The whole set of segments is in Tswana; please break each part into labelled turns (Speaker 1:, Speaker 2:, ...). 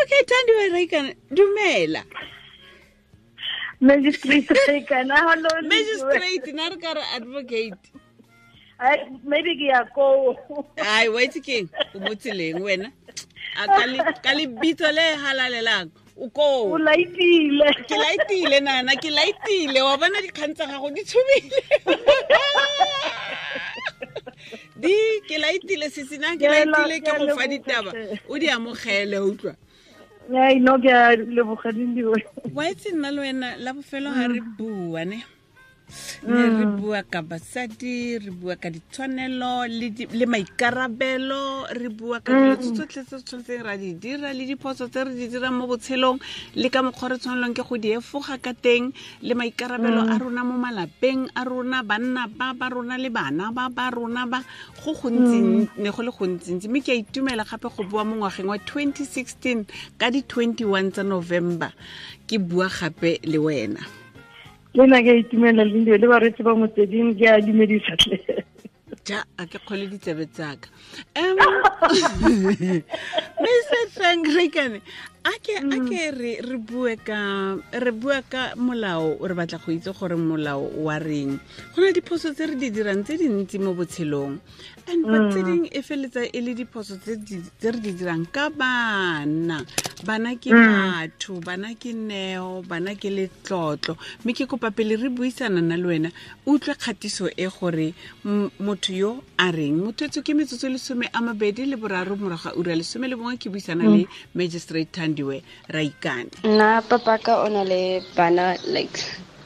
Speaker 1: Advocate Thandiwe Raikane, dumela.
Speaker 2: Magistrate Raikane, hello.
Speaker 1: Magistrate, na re ka re advocate.
Speaker 2: Maybe ke ya koo.
Speaker 1: Ai, wa itse keng? O mo tseleng wena. A ka lebitso le halalelang. O koo.
Speaker 2: O laitile.
Speaker 1: Ke laitile nana, ke laitile. Wa bona dikgang tsa gago di tshubile. Di ke laitile sisina, ke laitile ke go fa ditaba. O di amogele, utlwa.
Speaker 2: Ai, no, ke a leboga Lindiwe.
Speaker 1: Wa itse nna le wena la bofelo ha re bua ne. Ne re bua ka basadi, re bua ka ditshwanelo le maikarabelo, re bua ka dilo tsotlhe tse tshwanetseng ra di dira le diphoso tse re di dirang mo botshelong le ka mokgwa re tshwanelwang ke go di efoga ka teng le maikarabelo a rona mo malapeng a rona, banna ba ba rona le bana ba ba rona ba go gontsi, ne go le gontsintsi. Mme ke a itumela gape go bua mo ngwageng wa 2016 ka di 21 tsa November ke bua gape le wena.
Speaker 2: Le nna ke a itumela Lindiwe le bareetsi ba motsweding, ke a dumedisa tle.
Speaker 1: Ja, a ke kgole ditsebe tsaka. Mister Frank Raikane, a ke re bue ka, re bua ka molao, re batla go itse gore molao wa reng. Go na le diphoso tse re di dirang tse dintsi mo botshelong. And but tse ding e feletsa e le diphoso tse re di dirang ka bana. Bana ke batho, bana ke neo, bana ke letlotlo. Mme ke kopa pele re buisana na le wena, utlwe kgatiso e gore motho yo a reng. Motho etsho ke metsotso e lesome a mabedi le boraro morago ga ura lesome le bongwe, ke buisana le Magistrate Thandiwe Raikane.
Speaker 3: Nna papaka o na le bana like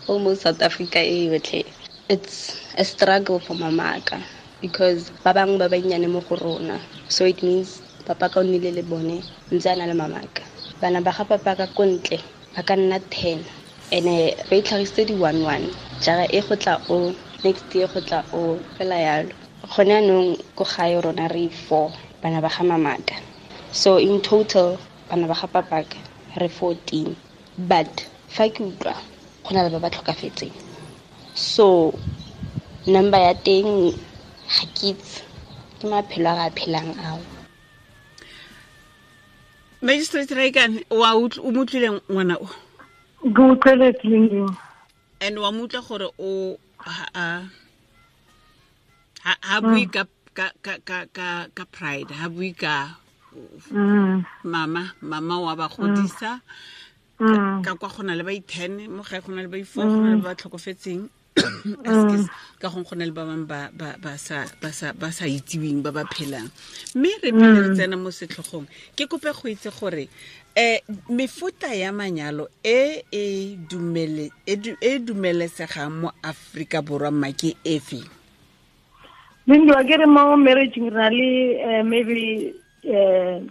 Speaker 3: almost South Africa e yotlhe. It's a struggle for mamaka because ba bangwe ba bannyane mo go rona. So it means papa ka o nnile le bone ntse a na le mamaka. Bana ba ga papa ka ko ntle ba ka nna 10. Ene ba itlhagisitse di 1-1. Jara e go tla o, next year go tla o, fela yalo. Gone jaanong ko gae rona re 4 bana ba ga mamaka. So in total bana ba ga papaka re 14. But fa ke utlwa go na le ba ba tlhokafetseng. So number ya teng ga ke itse, ke maphelo a re a phelang ao.
Speaker 1: Magistrate Raikane, wa utlw-, o mo utlwile ngwana o?
Speaker 2: Ke utlweletse Lindiwe.
Speaker 1: And wa mo utlwa gore o ha bue ka pride, ha bue ka mama wa ba godisa. Ka kwa go na le ba i-10, mo gae go na le ba i-4, go na le ba tlhokofetseng. Excuse, ka gongwe go na le ba bangwe ba sa itsiweng, ba ba phelang. Mme re pele re tsena mo setlhogong, ke kope go itse gore, mefuta ya manyalo e e dumele, e du-, e dumelesegang mo Aforika Borwa mma ke efe?
Speaker 2: Lindiwe, ke re mo marriage re na le maybe 2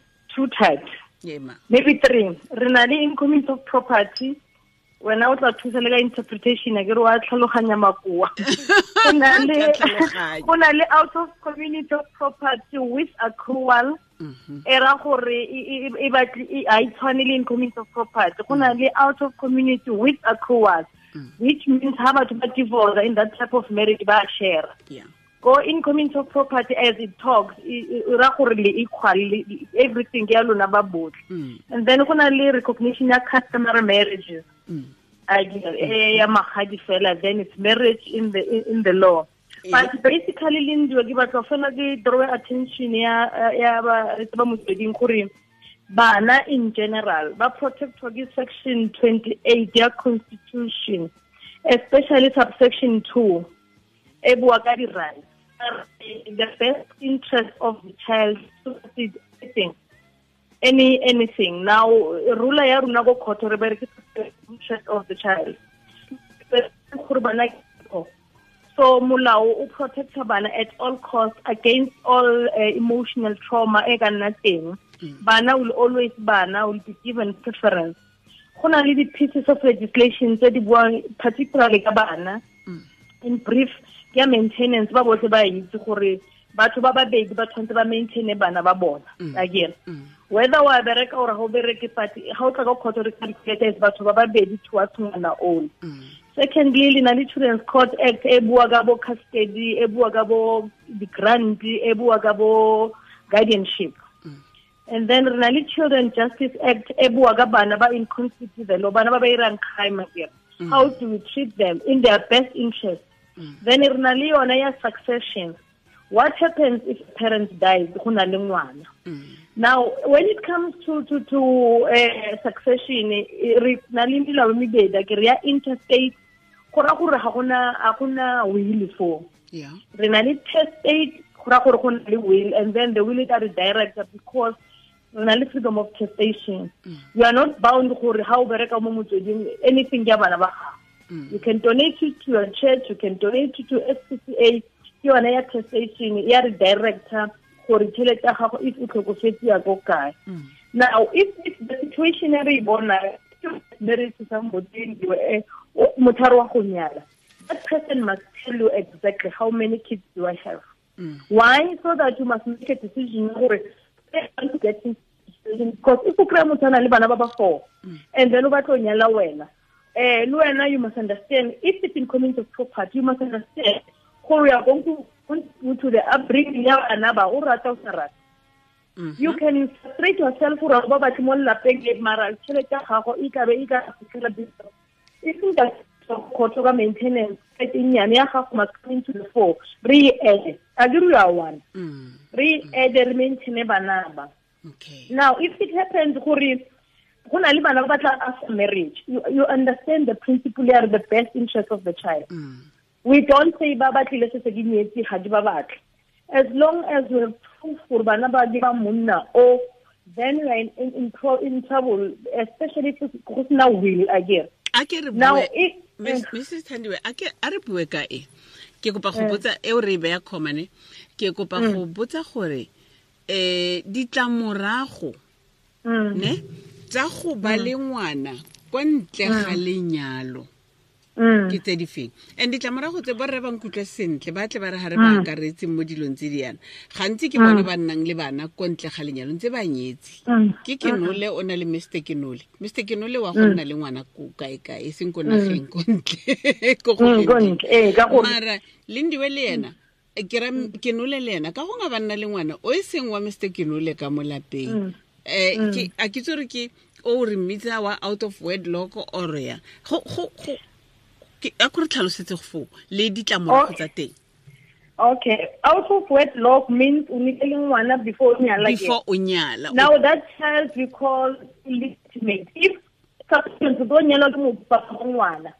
Speaker 2: types.
Speaker 1: Yeah, ma.
Speaker 2: Maybe 3. Re na le in community of property. Wena o tla thusa le ka interpretation, ke re wa tlhaloganya makoa. Go na le,
Speaker 1: Ke a tlhaloganya.
Speaker 2: go na le out of community of property with accrual. E ra gore e batle, e, ha e tshwane le in community of property. Go na le out of community with accrual, which means ha batho ba divorce in that type of marriage ba share. Go in community of property as it talks, e ra gore le equal, le, everything ya lona ba botlhe. And then go na le recognition ya customary marriages. Ya magadi fela, then it's marriage in the law. But basically, Lindiwe, ke batla fela ke draw attention ya ba, ba motsweding gore bana in general ba protectwa ke section 28 ya constitution, especially subsection 2 e bua ka di rights. In the best interest of the child, anything, any, anything. Now, rula ya rona ko court re bereke interest of the child. Gore bana ke So molao o protecta bana at all costs against all emotional trauma e ka nna teng. Bana will always, bana will be given preference. Go na le di-pieces of legislation tse di buang particularly ka bana. In brief, ke ya maintenance, ba botlhe ba itse gore batho ba babedi ba tshwanetse ba maintaine bana ba bona. Again, whether wa bereka or ha o bereke, but ha o tla ka court re calculate batho ba babedi towards ngwana oo. Secondly, le na le Children's Court Act e bua ka bo custody, e bua ka bo di-grant, e bua ka bo guardianship. And then re na le Children Justice Act e bua ka bana ba in conflict with the law, bana ba ba irang crime akere. How do we treat them in their best interest? Then re na le yona ya succession. What happens if parents die go na le ngwana? Now when it comes to succession, re na le melao e mebedi akere, ya interstate go ra gore ga gona will foo. Re na le testate go ra gore go na le will, and then the will is director because re na le freedom of testation. You are not bound gore ha o bereka mo motsweding anything ya bana ba gago. You can donate it to your church, you can donate it to SPCA. Ke yone ya testation ya re director gore tšhelete ya gago if o tlhokofetse ya ko kae. Now if the situation re e bona married to somebody, motho wa go nyala, that person must tell you exactly how many kids do I have. Why? So that you must make a decision gore because if o kry-a motho a na le bana ba ba 4 and then o batla o nyala wena, le wena you must understand if it's in community of property, you must understand gore you are going to contribute to the upbringing ya bana ba, o rata o sa rata. You can frustrate yourself gore ba batle mo lelapeng le mara tšhelete ya gago e tlabe e ka fitlhela e seng ka kgotso ka maintenance e nnyane ya gago must come into the fore. Re e add, a ke re you are one. Re add, re maintain bana ba.
Speaker 1: Okay.
Speaker 2: Now if it happens gore go na le bana ba batla after marriage, you understand the principle ya the best interest of the child. We don't say ba batlile se se ke nyetse ga di ba batle. As long as we have proof gore bana ba di ba monna o, then we are in trouble, especially if go sena will again.
Speaker 1: A ke re bue, Mrs. Thandiwe, a re bue ka e. Ke kopa go botsa e o re beya khomane, ke kopa go botsa gore ditlamorago ne tsa go ba le ngwana kwa ntle ga lenyalo ke tse di feng? And ditlamorago tse borre ba nkutlwe sentle, ba tle ba re ha re ba akaretse mo dilong tse di yana. Gantsi ke bone ba nnang le bana kwa ntle ga lenyalo ntse ba nyetse. Ke Kenole o na le Mr. Kenole. Mr. Kenole wa go nna le ngwana ko kae kae, e seng ko nageng ko ntle. Ko go Mara Lindiwe le yena, ke ra Kenole le yena ka go nga ba nna le ngwana o e seng wa Mr. Kenole ka mo lapeng. Ke a ke tsore ke o re mmitsa wa out of wedlock or ya. Go a ko re tlhalosetse go foo le ditlamorago tsa teng.
Speaker 2: Okay, out of wedlock means o nile le ngwana before o nyala.
Speaker 1: Before o nyala.
Speaker 2: Now that child we call illegitimate. If subsequent to nyala ke mo papa ngwana.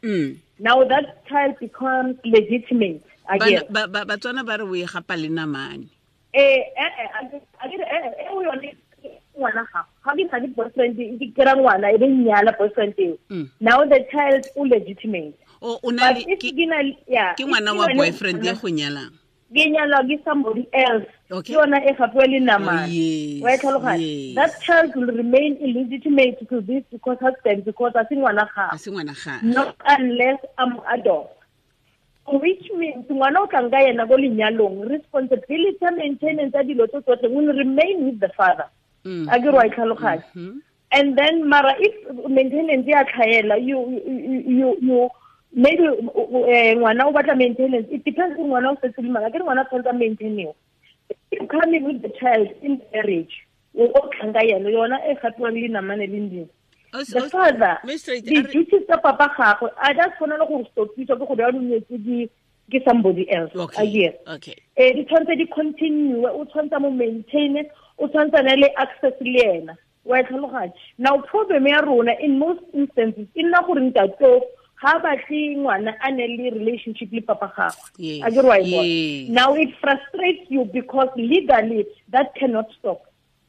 Speaker 2: Now that child becomes legitimate again.
Speaker 1: Batswana ba re o e gapa le namane.
Speaker 2: A ke re o yone ngwana ga ga ke na le boyfriend ke kera ngwana e be nyala boyfriend eo. Now the child is legitimate.
Speaker 1: O na le ke ngwana wa boyfriend ya go nyalang.
Speaker 2: Ke nyalwa ke somebody else. Ke yona e gapiwa le namane. Wa e tlhaloganya? That child will remain illegitimate to this because husband, because a se ngwana ga.
Speaker 1: A se ngwana ga.
Speaker 2: Not unless I'm adult. Which means ngwana o tlang ka yena ko lenyalong, responsibility ya maintenance ya dilo tse tsotlhe will remain with the father. A ke re wa e tlhaloganya? And then mara if maintenance ya tlhaela, you maybe ngwana o batla maintenance, it depends on ngwana o setse le mang. Akere ngwana tshwanetse a maintainiwe. If coming with the child in marriage, o tlang ka yena, yona e gapiwang le namane le ndimo. The father, the duties tsa papa gagwe a di a tshwanela gore stopisa ke go bewa nyetse ke somebody else.
Speaker 1: Okay. Okay.
Speaker 2: Di tshwanetse di continue, o tshwanetse mo maintain, o tshwanetse na le access le ena. Wa tlhaloganya? Now problem ya rona in most instances e nna gore ntate ga batle ngwana a ne le relationship le papa gagwe. A ke re wa e bona? Now it frustrates you because legally that cannot stop.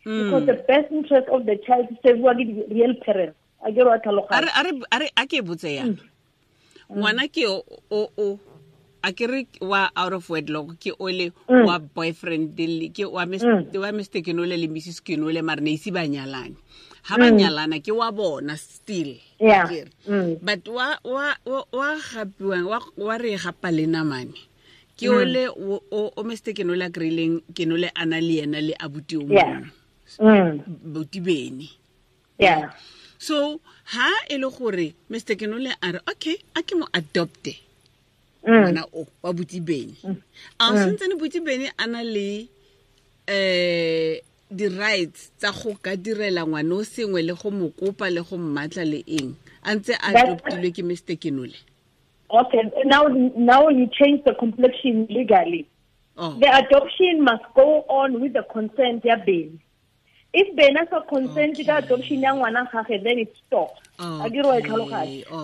Speaker 2: Because the best interest of the child is served by the real parents. A ke re wa tlhaloganya?
Speaker 1: A re a ke botse yana. Ngwana ke o a ke re wa out of wedlock ke ole wa boyfriend ke wa Mr. Kenole le Mrs. Kenole mara ne ise ba nyalane. Ha ba nyalana ke wa bona still.
Speaker 2: Yeah.
Speaker 1: But wa gapiwang wa re gapa le namane. Ke ole o Mr. Kenole a kry-ileng Kenole a na le yena le abuti o mongwe. Buti bene.
Speaker 2: Yeah.
Speaker 1: So ha e le gore Mr. Kenole a re okay, a ke mo adopte. Ngwana o wa buti bene. A sentse ne buti bene a na le di rights tsa go ka direla ngwana o sengwe le go mo kopa le go mmatla le eng a ntse a adoptilwe ke Mr. Kenole?
Speaker 2: Okay, now you change the complexion legally.
Speaker 1: Oh.
Speaker 2: The adoption must go on with the consent ya Beni. If Beni has consent to the adoption ya ngwana gagwe, then it stops.
Speaker 1: Okay.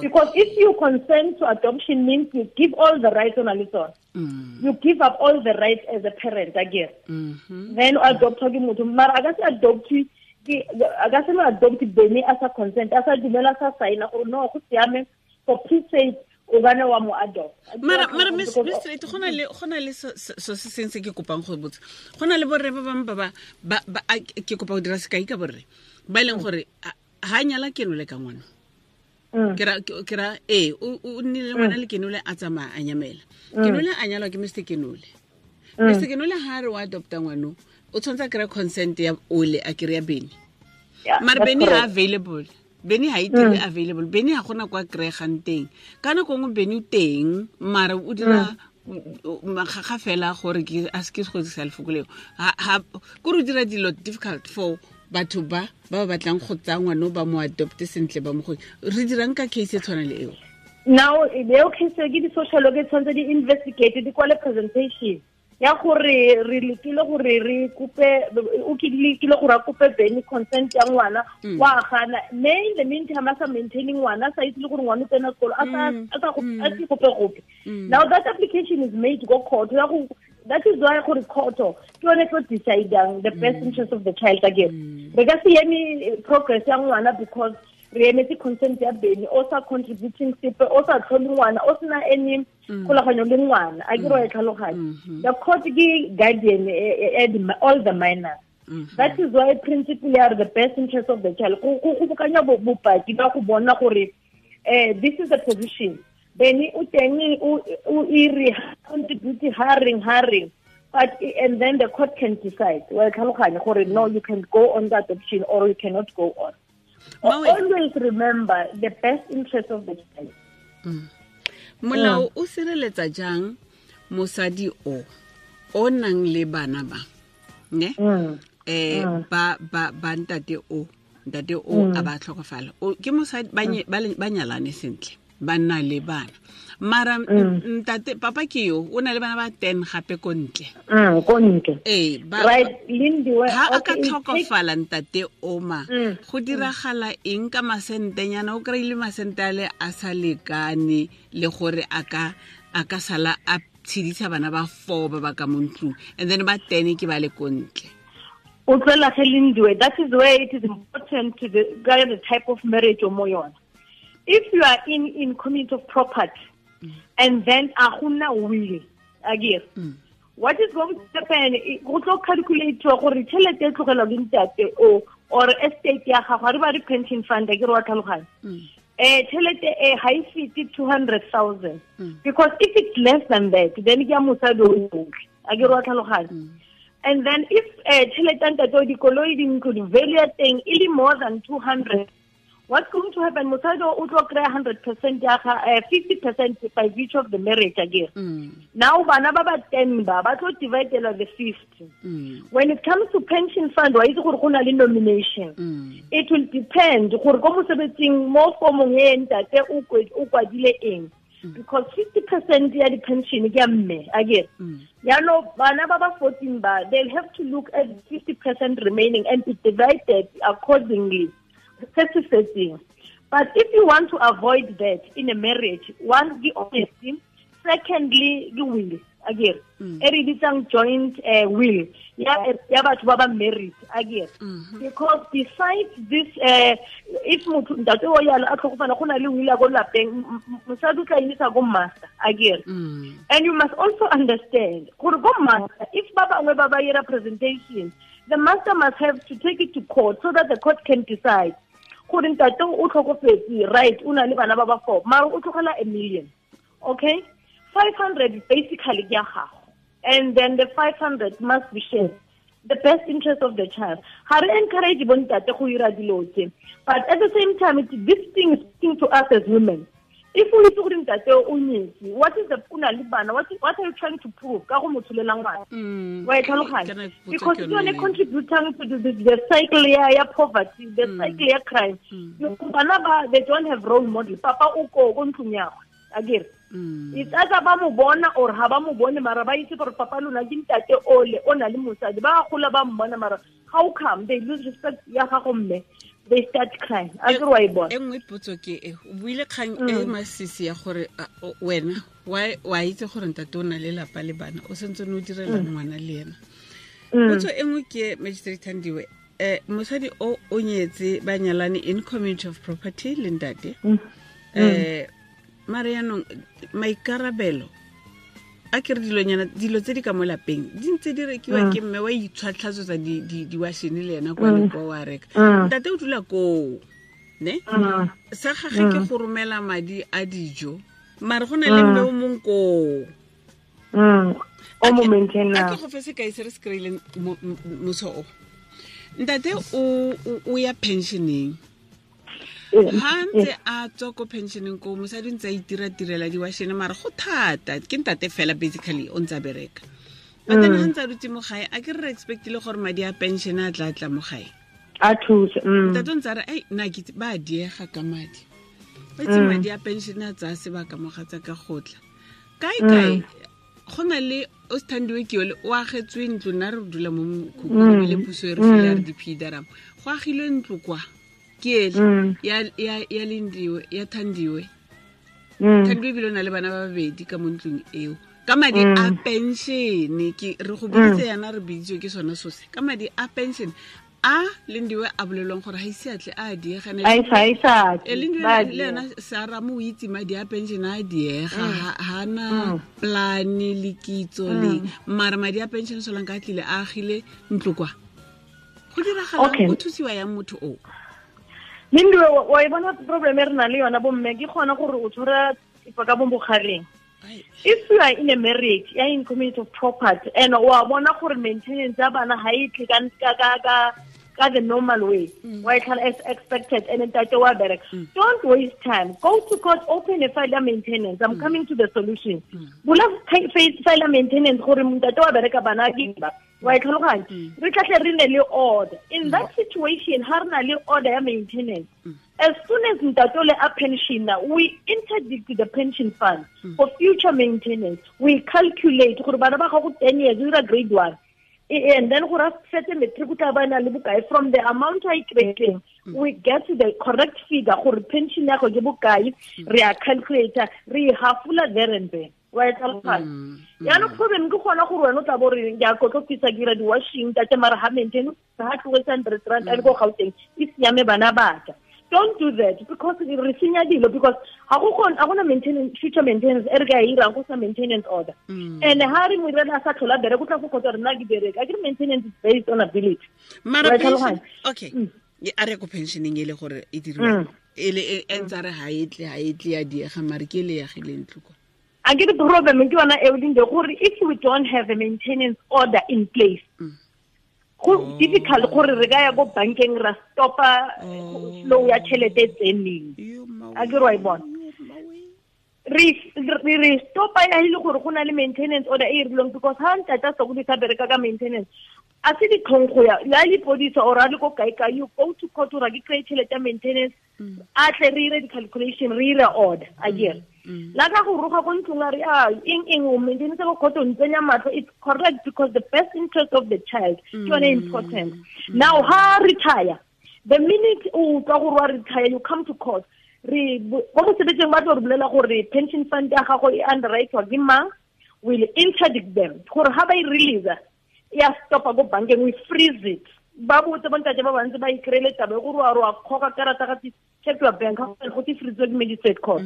Speaker 2: Because if you consent to adoption means you give all the rights on a little. You give up all the rights as a parent again. Then adopt ke motho mara a ka se adopt ke a ka se adopt Beni as a consent as a dumela sa sign gore no go siame for peace sake o bana wa mo adopt.
Speaker 1: Mara Miss Straight go na le so se seng se ke kopang go botsa. Go na le borre ba bangwe ba ke kopa go dira sekai ka borre ba e leng gore ha nyala Kenole ka ngwana. Ke ra o nnile ngwana le Kenole a tsamaya a nyamela. Kenole a nyalwa ke Mr. Kenole. Mr. Kenole ha re wa adopta ngwano o tshwanetse a kry consent ya ole a kry ya Beni. Mara Beni ha available. Beni ha itire available. Beni ha gona kwa kry-egang teng. Ka nako nngwe Beni o teng mara o dira makgakga fela gore ke a se ke go dirisa lefoko leo. Kore o dira dilo difficult for batho ba ba batlang go tsaya ngwana ba mo adopte sentle ba mo go re dirang ka case e tshwana le eo.
Speaker 2: Now eo case ke di social worker tshwanetse di investigate di kwale presentation ya gore re lekile gore re kope o lekile gore a kope Beni consent ya ngwana wa gana mme in the meantime a sa maintaining ngwana sa itse le gore ngwana o tsena sekolo a sa se gope gope. Now that application is made go court ya go. That is why gore court ke yone tlo deciding the best interest of the child again. Re ka se eme progress ya ngwana because re emetse consent ya Beni o sa contributing sepe o sa tlhole ngwana o sena any kgolaganyo le ngwana a ke re tlhaloganya. The court ke guardian all the minors. That is why principle ya the best interest of the child go bokanya bopaki ba go bona gore this is the position. Beni o teng o iri contribute hiring but and then the court can decide well tlhaloganya gore no you can go on the adoption or you cannot go on. Always remember the best interest of the child.
Speaker 1: Molao o sireletsa jang mosadi o nang le bana ba ne ba ntate o a ba tlhokofala ke mosadi ba nyalane sentle ba nna le bana mara ntate papa ke yo o na le bana ba 10 gape ko ntle
Speaker 2: ko ntle right Lindiwe
Speaker 1: ha a ka tlhokofala ntate oma go diragala eng ka masentenyana o kry-ile masente ale a sa lekane le gore a ka sala a tshedisa bana ba 4 ba ba ka mo ntlong and then ba 10 ke ba le ko ntle.
Speaker 2: O tswela ge Lindiwe, that is where it is important to the type of marriage o mo yona. If you are in community of property and then a gona will again what is going to happen go tlo calculate gore tšhelete e tlogelwa ke ntate o or estate ya gago re ba re pension fund ke re wa tlhaloganya tšhelete e ga e fete 200,000 because if it's less than that then ke ya mosadi o yotlhe a ke re wa tlhaloganya. And then if tšhelete ntate o dikoloi dintlo di value ya teng e le more than 200, what's going to happen? Mosadi o tlo kry 100% ya ga 50% by virtue of the marriage again. Now bana ba ba 10 ba tlo dividela the 50. When it comes to pension fund wa itse gore go na le nomination. It will depend gore ko mosebetsing mo formong e ntate o kwadile eng. Because 50% ya di pension ke ya mme again. Yaanong bana ba ba 14 ba they'll have to look at 50% remaining and be divided accordingly. But if you want to avoid that in a marriage, one, the honesty, secondly, the will. Again, e re bitsang joint will. Ya batho ba ba married again. Because besides this, if motho ntate o yalo a tlhokofala go na le will ya ko lapeng, mosadi o tla emisa ko master again. And you must also understand gore ko master, if ba bangwe ba ba ira presentation, the master must have to take it to court so that the court can decide. Gore ntate o tlhokofetse, right, o na le bana ba ba 4, mara o tlogela 1 million. Okay? 500 basically ke ya gago. And then the 500 must be shared. The best interest of the child. Ha re encourage bontate go ira dilo tse. But at the same time, this thing is speaking to us as women. If o itse gore ntate o nyetse, what is the o na le bana, what are you trying to prove ka go mo tsholela ngwana? Wa e tlhaloganya? Because ke yone contributing to the cycle ya poverty, the cycle ya crime. Bana ba, they don't have role model. Papa o ko ntlong ya gagwe, akere? It's either ba mo bona or ha ba mo bone, mara ba itse gore papa lona ke ntate ole o na le mosadi. Ba gola ba mmona, mara how come they lose respect ya gago mme? They start crying. A ke wa e bona.
Speaker 1: E nngwe potso ke e, o buile kgang e masisi ya gore wena wa itse gore ntate o na le lapa le bana, o sentse o direla ngwana le ena. Potso e nngwe ke Magistrate Thandiwe, mosadi o nyetse ba nyalane in community of property le ntate. Mare yaanong maikarabelo a ke re dilonyana dilo tse di ka mo lapeng di ntse di rekiwa ke mme wa itshwatlhatsotsa diwashene le ena kwa le kwa wa reka. Ntate o dula koo, ne? Sa gage ke go romela madi a dijo, mare go na le mme o mong koo.
Speaker 2: O mo maintainer.
Speaker 1: A ke go fe sekai se re se kry-ileng moso o. Ntate o ya pensioneng. Ha ntse a tswa ko pensioneng ko, mosadi o ntse a itira-tirela diwashene, mara go thata, ke ntate fela basically o ntse a bereka. But then ha ntse a dutse mo gae, a ke re expectile gore madi a pension a tla tla mo gae.
Speaker 2: A thuse.
Speaker 1: Ntate o ntse a re, ai, nna ke itse, ba diega ka madi. Ba itse madi a pension a tsaya sebaka mo ga tsa ka go tla. Kae kae, go na le o Sthandiwe ke yole, o agetswe ntlo, nna re dula mo mokhukhung, ebile puso e re file ya re di-P-D-R-M. Go agilwe ntlo kwa. Ke ele, ya Lindiwe, ya Thandiwe. Thandiwe ebile o na le bana ba babedi ka mo ntlong eo. Ka madi a pension, ke re go biditse yana, re biditswe ke sone so se. Ka madi a pension, a Lindiwe a bolelwang gore ha ise a tle a diega, ne
Speaker 2: A isa, a isa.
Speaker 1: Lindiwe
Speaker 2: Ba
Speaker 1: le
Speaker 2: diega.
Speaker 1: ena Sarah mo o itse madi a pension a diega, ha na plan le kitso le, mara madi a pension solang ka tlile a agile ntlo kwa. Go diragalang, o thusiwa yang motho o?
Speaker 2: Lindiwe, wa e bona problem e re nang le yona bomme, ke kgona gore o tshwara thipa ka bo bogareng. If you are in a marriage, ya in community of property, and wa bona gore maintenance ya bana ha e tle ka the normal way, wa e tlhola as expected, and ntate wa bereka. Don't waste time. Go to court, open a file ya maintenance. I'm coming to the solution. Bula file ya maintenance gore ntate wa bereka bana ke ba. Wa e tlhaloganya? Re tla tle re nne le order. In that situation, ha re na le order ya maintenance, as soon as ntate o le a pension, we interdict the pension fund for future maintenance. We calculate gore bana ba gago 10 years, o dira grade 1. And then gore a fetse matric o tla ba na le bokae from the amount a e kry-ileng, we get to the correct figure gore pension ya go ke bokae, re a calculate, re e hafola there and then. Wa e tlhaloganya? Yaanong problem ke gona gore wena o tla bo re, ke a kotlopisa, ke dira di-washing, ntate mara ha maintain, ha tlogetse hundred rand, a le ko Gauteng, e siame bana ba ka. Don't do that, because re senya dilo, because ha go kgone, ha gona maintenance, future maintenance e re ka e irang go sa maintenance order. And ha re mo irela a sa tlhola bereka, o tla go kgotsa re nna ke bereka. Akere maintenance is based on ability.
Speaker 1: Mara
Speaker 2: Wa e
Speaker 1: pension,
Speaker 2: tlhaloganya?
Speaker 1: okay. Ye, a re ko pensioneng e le gore e diriwa. E le, e, e ntse a re ha e tle, ha e tle ya diega, mare ke e le yagileng ntlo kwa.
Speaker 2: A ke re problem ke yona eo, Linde, gore if we don't have a maintenance order in place, go difficult gore re ka ya ko bankeng ra stopa flow ya tšhelete e tseneng.
Speaker 1: Yo, mawe.
Speaker 2: A ke re wa e bona?
Speaker 1: Yo, mawe.
Speaker 2: Re stopa ya e le gore go na le maintenance order e e rileng, because ha ntate a sokodisa bereka ka maintenance, a se ditlhong go ya, ya lepodisa or a le ko kae kae, you go to court gore ke kry-e tšhelete ya maintenance, a tle re ire di-calculation, re ire order, a kere. La ka go roga ko ntlong a re, ah, eng, eng, o maintenance ko court o ntsenya matlho, it's correct because the best interest of the child ke yone important. Now, ha retire, the minute o utlwa gore wa retire, you come to court. Re, ko mosebetsing ba tlo re bolela gore pension fund ya gago e underwrite-wa ke mang, will interdict them. Gore ha ba e release, ya stopa ko bankeng, we freeze it. Ba botse bontate ba bantsi ba ikry-ele taba e gore wa re wa kgoka karata ga check your bank, ha go te freeze ke magistrate court.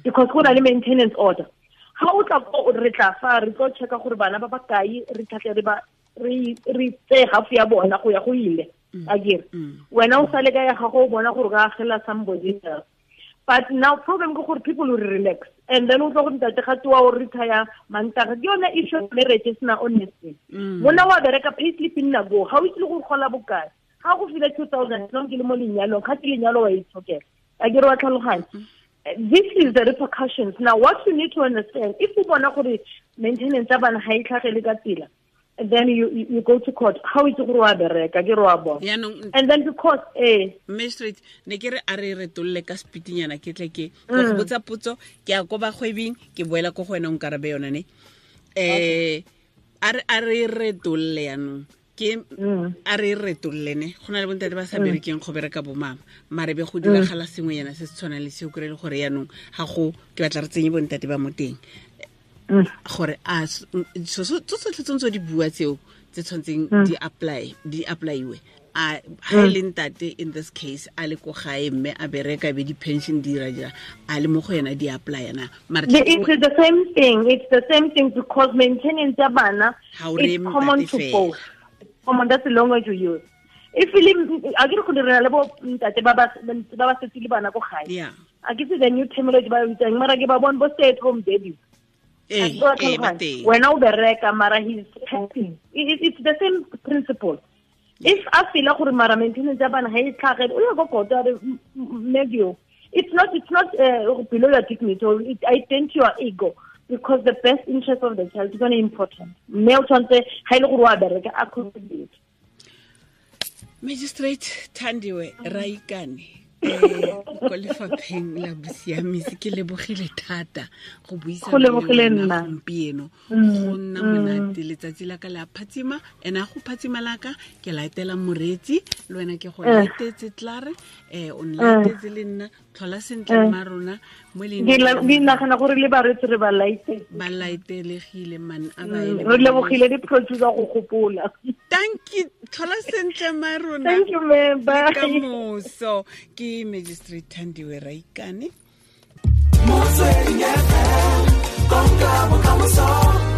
Speaker 2: Because go na le maintenance order. Ha o tla ko, re tla fa, re tlo checka gore bana ba ba kae, re tlhatle re ba, re, re tseye half ya bona go ya go ile. Akere. Wena o sale ka ya gago o bona gore o ka agela somebody else. But now problem ke gore people will relax. And then o tlo go ntate ga tloa o retire Mantaga. Ke yone issue ya marriage e sena honesty. Monna wa bereka pay slip nna go. Ga o itse le gore gola bokae. Ga go file 2000, long ke le mo lenyalong, ga ke lenyalo wa itshokela. A ke re wa tlhaloganya. This is the repercussions. Now what you need to understand, if o bona gore maintenance ya bana ga e tlhagele ka tsela, then you go to court. How is gore wa bereka ke re wa bona. And then because
Speaker 1: magistrate ne ke re a re retolle ka spitinyana ke tle ke go botsa potso ke ya ko bagwebing ke boela ko go wena o nkarabe yona ne. A re retolle yanong ke a re retolle ne go na le bontate ba sa berekeng go bereka bo mama mare be go diragala sengwe yana se se tshwanang le seo kry le gore yanong ga go ke batla re tsenye bontate ba mo teng gore a so tsotlhe tse di bua tseo tse tshwantseng di applyiwe a ha le ntate in this case a le ko gae mme a bereka be di pension di dira dira a le mo go yena di apply na mare
Speaker 2: it's the same thing. It's the same thing because maintenance ya bana is common to both. Common, that's the language you use. If a ke go dira le bo ntate ba ba setse le bana ko gae.
Speaker 1: Yeah.
Speaker 2: A ke se the new terminology ba bitsang mara ke ba bona bo stay at home daddies. Wena o bereka mara he's helping. It's the same principle. If a feel gore mara maintenance ya bana ha e tlhage o ya go kota re medio. It's not below your dignity. It ident your ego because the best interest of the child is very important. Mme o tshwanetse ha ile gore wa bereka a contribute.
Speaker 1: Magistrate Thandiwe Raikane ko lefapheng la bosiamisi ke lebogile thata go buisana le wena gompieno go nna monate letsatsi la ka le a phatsima ene a go phatsima la ka ke laetela moreetsi le wena ke go laetetse tlare o nlaetetse le nna tlhola sentle mma rona mo
Speaker 2: le ke nagana gore le bareetsi re ba laetetse
Speaker 1: ba laetelegile man a ba
Speaker 2: re lebogile di producer go gopola.
Speaker 1: Thank you tlhola sentle mma rona.
Speaker 2: Thank you ma'am, bye.
Speaker 1: Ka moso ke Magistrate Thandiwe Raikane.
Speaker 4: Motsweding FM, konka bokamoso.